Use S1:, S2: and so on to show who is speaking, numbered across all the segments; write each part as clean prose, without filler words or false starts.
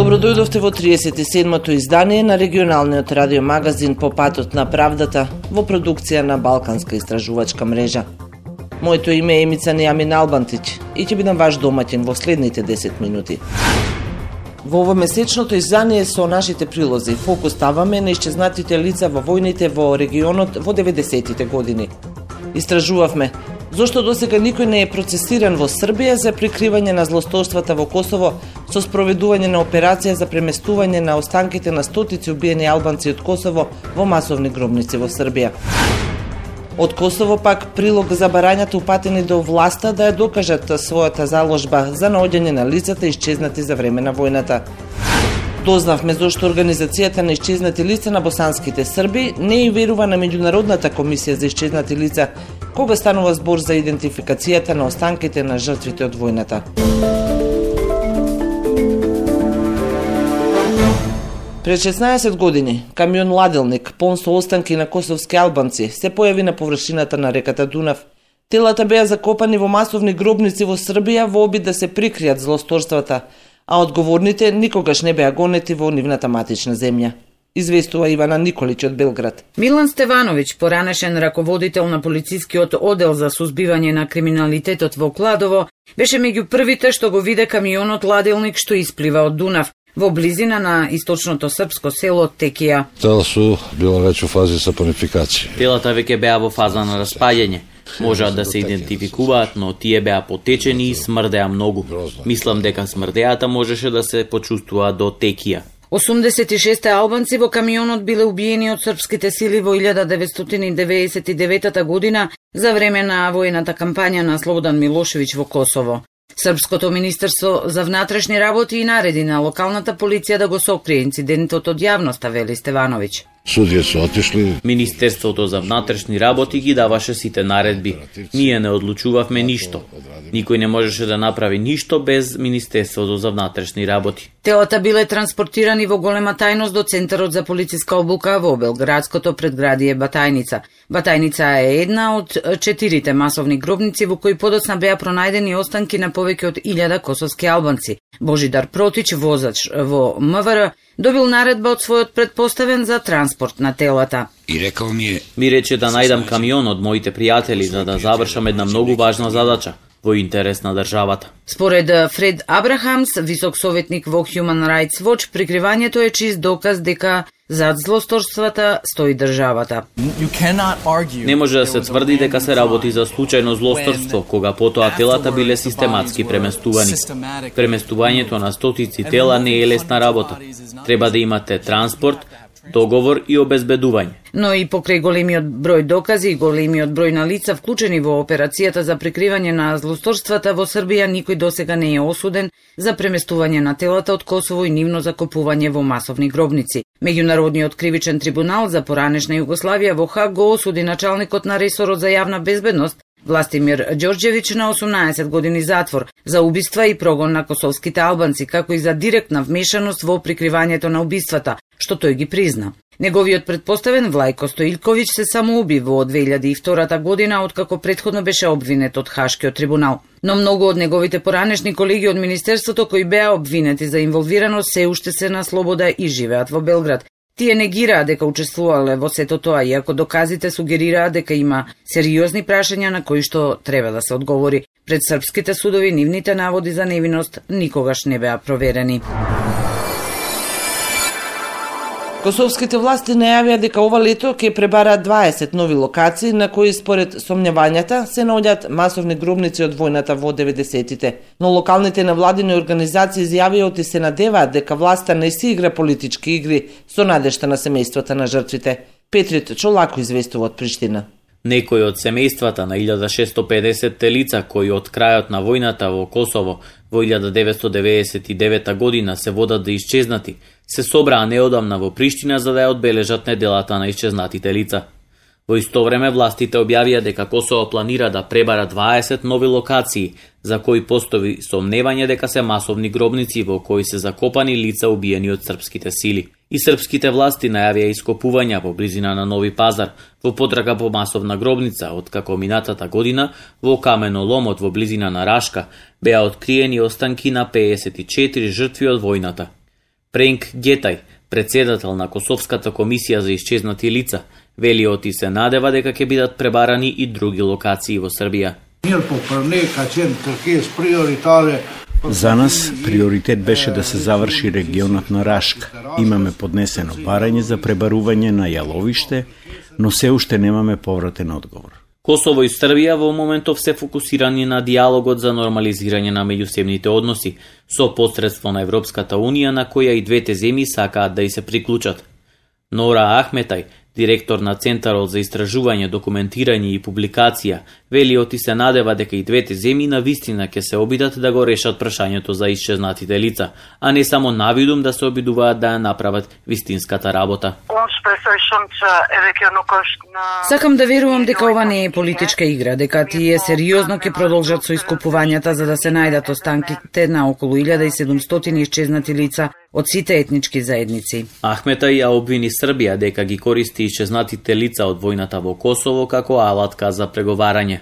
S1: Добродојдовте во 37-то издание на регионалниот радиомагазин По патот на правдата во продукција на Балканска истражувачка мрежа. Моето име е Емица Нејамин Албантич и ќе бидам ваш домаќин во следните 10 минути. Во ово месечното издание со нашите прилози фокус ставаме на исчезнатите лица во војните во регионот во 90-тите години. Истражувавме зошто досега никој не е процесиран во Србија за прикривање на злосторствата во Косово со спроведување на операција за преместување на останките на стотици убиени албанци од Косово во масовни гробници во Србија. Од Косово пак прилог за барањата упатени до власта да ја докажат својата заложба за наоѓање на лицата исчезнати за време на војната. Дознавме зошто Организацијата на исчезнати лица на босанските срби не и верува на Меѓународната комисија за исчезнати лица, кога станува збор за идентификацијата на останките на жртвите од војната. Пред 16 години, камион ладелник, полн со останки на косовски албанци, се појави на површината на реката Дунав. Телата беа закопани во масовни гробници во Србија во обид да се прикријат злосторствата, а одговорните никогаш не беа гонети во нивната матична земја. Известува Ивана Николич од Белград.
S2: Милан Стевановиќ, поранешен раководител на полицискиот оддел за сузбивање на криминалитетот во Кладово, беше меѓу првите што го виде камионот ладелник што исплива од Дунав во близина на источното српско село Текија.
S3: Тела су била веќе во фази сапонификација.
S4: Телата веќе беа во фаза на распаѓање. Можеа да се идентификуваат, но тие беа потечени и смрдеа многу. Мислам дека смрдеата можеше да се почувствува до Текија.
S2: 86 албанци во камионот биле убиени од српските сили во 1999 година за време на војната кампања на Слободан Милошевиќ во Косово. Српското министерство за внатрешни работи и нареди на локалната полиција да го сокрие инцидентот од јавноста, вели Стевановиќ.
S3: Судија се отишли.
S4: Министерството за внатрешни работи ги даваше сите наредби. Ние не одлучувавме ништо. Никој не можеше да направи ништо без Министерството за внатрешни работи.
S2: Телата биле транспортирани во голема тајност до Центарот за полициска обука во белградското предградие Батајница. Батајница е една од 4 масовни гробници во кои подоцна беа пронајдени останки на повеќе од 1000 косовски албанци. Божидар Протич, возач во МВР, добил наредба од својот предпоставен за транспорт на телата.
S5: И рекол
S4: ми рече да најдам камион од моите пријатели за да завршам една многу важна задача во интерес на државата.
S2: Според Фред Абрахамс, висок советник во Human Rights Watch, прикривањето е чист доказ дека зад злосторствата стои државата.
S4: Не може да се тврди дека се работи за случајно злосторство, кога потоа телата биле систематски преместувани. Преместувањето на стотици тела не е лесна работа. Треба да имате транспорт, договор и обезбедување.
S2: Но и покрај големиот број докази и големиот број на лица вклучени во операцијата за прикривање на злосторствата во Србија, никој досега не е осуден за преместување на телата од Косово и нивно закопување во масовни гробници. Меѓународниот кривичен трибунал за поранешна Југославија во Хаг го осуди началникот на ресорот за јавна безбедност Властимир Ѓорѓевиќ на 18 години затвор за убиства и прогон на косовските албанци, како и за директна вмешаност во прикривањето на убиствата, што тој ги призна. Неговиот предпоставен Влајко Стоилковиќ се самоуби во 2002 година, откако претходно беше обвинет од Хашкиот трибунал. Но многу од неговите поранешни колеги од Министерството кои беа обвинети за инволвираност се уште се на слобода и живеат во Белград. Тие негираа дека учествувале во сето тоа, иако доказите сугерираа дека има сериозни прашања на кои што треба да се одговори. Пред српските судови нивните наводи за невиност никогаш не беа проверени.
S1: Косовските власти најавија дека ова лето ќе пребараат 20 нови локации на кои според сомневањата се наоѓаат масовни гробници од војната во 90-тите. Но локалните невладини организации изјавија и се надеваат дека власта не си игра политички игри со надежта на семејствата на жртвите. Петрит Чолако известува од Приштина.
S4: Некои од семејствата на 1650 лица кои од крајот на војната во Косово во 1999 година се водат да исчезнати, се собраа неодамна во Приштина за да ја одбележат неделата на исчезнатите лица. Во исто време властите објавија дека Косово планира да пребара 20 нови локации за кои постои сомневање дека се масовни гробници во кои се закопани лица убиени од српските сили. И српските власти најавија ископувања во близина на Нови Пазар во потрага по масовна гробница, откако минатата година во каменоломот во близина на Рашка беа откриени останки на 54 жртви од војната. Пренк Гетај, председател на Косовската комисија за исчезнати лица, вели оти се надева дека ќе бидат пребарани и други локации во Србија.
S5: За нас приоритет беше да се заврши регионот на Рашка. Имаме поднесено барање за пребарување на јаловиште, но се уште немаме повратен одговор.
S4: Косово и Србија во моментов се фокусирани на диалогот за нормализирање на меѓусебните односи со посредство на Европската Унија, на која и двете земји сакаат да и се приклучат. Нора Ахметај, директор на Центарот за истражување, документирање и публикација, вели оти се надева дека и двете земји навистина ќе се обидат да го решат прашањето за исчезнатите лица, а не само навидум да се обидуваат да ја направат вистинската работа.
S2: Сакам да верувам дека ова не е политичка игра, дека тие сериозно ќе продолжат со искупувањата за да се најдат останките на околу 1700 исчезнати лица од сите етнички заедници.
S4: Ахметај ја обвини Србија дека ги користи исчезнатите лица од војната во Косово како алатка за преговарање.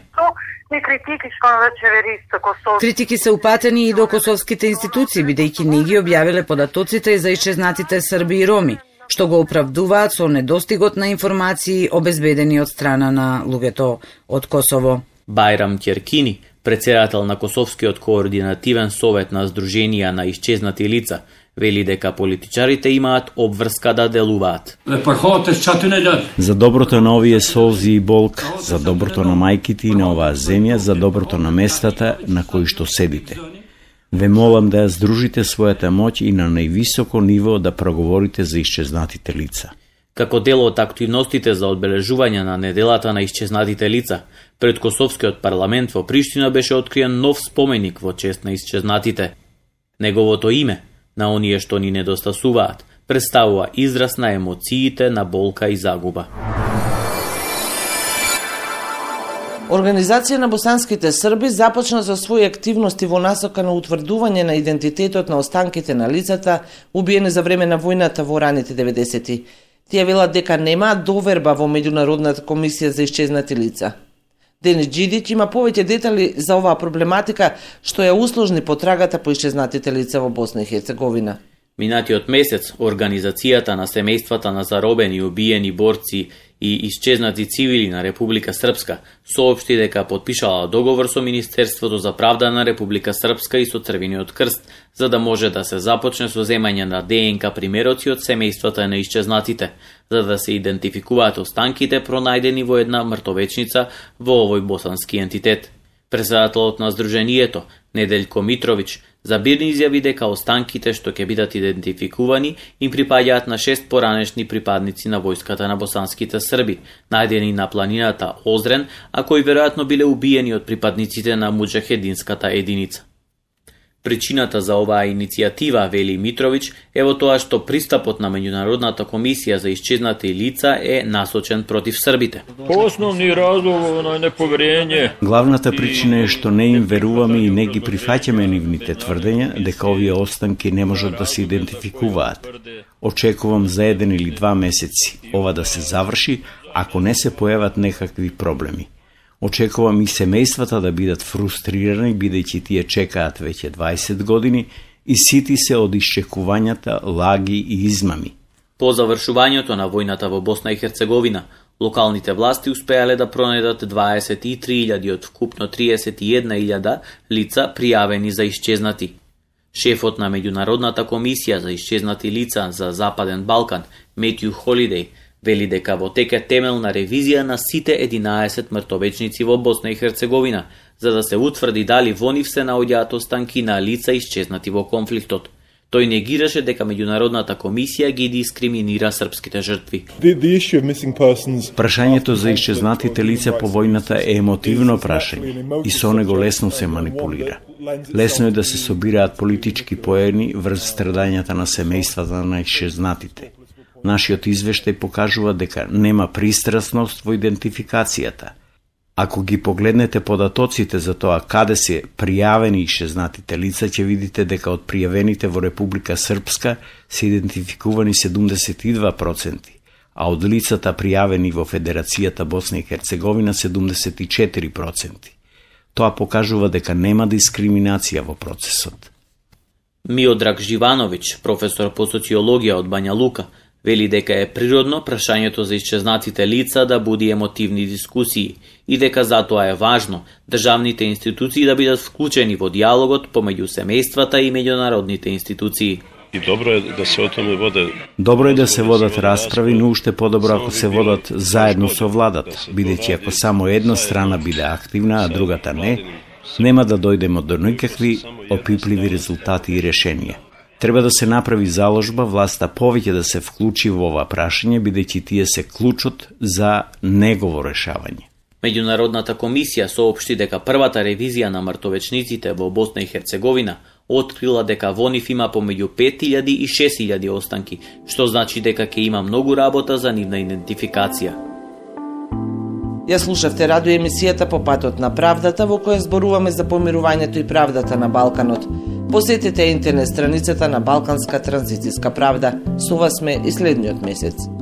S2: Критики се упатени и до косовските институции, бидејќи не ги објавиле податоците за исчезнатите срби и роми, што го оправдуваат со недостигот на информации обезбедени од страна на луѓето од Косово.
S4: Бајрам Ќеркини, председател на Косовскиот координативен совет на Сдруженија на исчезнати лица, вели дека политичарите имаат обврска да делуваат.
S5: За доброто на овие солзи и болка, за доброто на мајките и на оваа земја, за доброто на местата на кои што седите. Ве молам да ја здружите својата моќ и на највисоко ниво да проговорите за исчезнатите лица.
S4: Како дел од активностите за одбележување на неделата на исчезнатите лица, пред Косовскиот парламент во Приштина беше откриен нов споменик во чест на исчезнатите. Неговото име, на оние што ни недостасуваат, представува израз на емоциите на болка и загуба.
S1: Организација на босанските срби започна со своји активности во насока на утврдување на идентитетот на останките на лицата убиени за време на војната во раните 90-ти. Тие велат дека немаат доверба во Меѓународната комисија за исчезнати лица. Денис Џидиќ има повеќе детали за оваа проблематика што ја усложни потрагата по исчезнатите лица во Босна и Херцеговина.
S4: Минатиот месец, Организацијата на семејствата на заробени, убиени борци и исчезнати цивили на Република Српска соопшти дека потпишала договор со Министерството за правда на Република Српска и со Црвениот крст, за да може да се започне со земање на ДНК примероци од семејствата на исчезнатите, за да се идентификуваат останките пронајдени во една мртовечница во овој босански ентитет. Председателот на Сдруженијето, Неделјко Митровиќ, забирни изјави дека останките што ќе бидат идентификувани им припаѓаат на 6 поранешни припадници на војската на босанските срби, најдени на планината Озрен, а кои веројатно биле убиени од припадниците на муџахединската единица. Причината за оваа иницијатива, вели Митровиќ, е во тоа што пристапот на Меѓународната комисија за исчезнати лица е насочен против србите.
S6: Основни разлог на неповерење.
S5: Главната причина е што не им веруваме и не ги прифаќаме нивните тврдења дека овие останки не можат да се идентификуваат. Очекувам за 1 или 2 месеци ова да се заврши, ако не се појават некакви проблеми. Очекувам и семејствата да бидат фрустрирани, бидејќи тие чекаат веќе 20 години и сити се од исчекувањата, лаги и измами.
S4: По завршувањето на војната во Босна и Херцеговина, локалните власти успеале да пронајдат 23.000 од вкупно 31.000 лица пријавени за исчезнати. Шефот на Меѓународната комисија за исчезнати лица за Западен Балкан, Метју Холидеј, вели дека во тек е темелна ревизија на сите 11 мртовечници во Босна и Херцеговина, за да се утврди дали во нив се наоѓаат останки на лица исчезнати во конфликтот. Тој негираше дека Меѓународната комисија ги дискриминира српските жртви.
S5: Прашањето за исчезнатите лица по војната е емотивно прашање и со него лесно се манипулира. Лесно е да се собираат политички поени врз страдањата на семејствата на исчезнатите. Нашиот извештај покажува дека нема пристрасност во идентификацијата. Ако ги погледнете податоците за тоа каде се пријавени исчезнатите лица, ќе видите дека од пријавените во Република Српска се идентификувани 72%, а од лицата пријавени во Федерацијата Босна и Херцеговина 74%. Тоа покажува дека нема дискриминација во процесот.
S4: Миодраг Живановиќ, професор по социологија од Бања Лука, вели дека е природно прашањето за исчезнатите лица да буди емотивни дискусии и дека затоа е важно државните институции да бидат вклучени во диалогот помеѓу семејствата и меѓународните институции.
S7: И добро е да се о томе воде.
S5: Добро е да се водат расправи, но уште подобро ако се водат заедно со владата, бидејќи ако само една страна биде активна, а другата не, нема да дојдеме до никакви опипливи резултати и решенија. Треба да се направи заложба власта повеќе да се вклучи во ова прашање, бидејќи тие се клучот за негово решавање.
S4: Меѓународната комисија соопшти дека првата ревизија на мртовечниците во Босна и Херцеговина открила дека во нив има помеѓу 5000 и 6000 останки, што значи дека ќе има многу работа за нивна идентификација.
S1: Ја слушавте радио емисијата По патот на правдата, во која зборуваме за помирувањето и правдата на Балканот. Посетете интернет страницата на Балканска транзицијска правда. Со вас сме и следниот месец.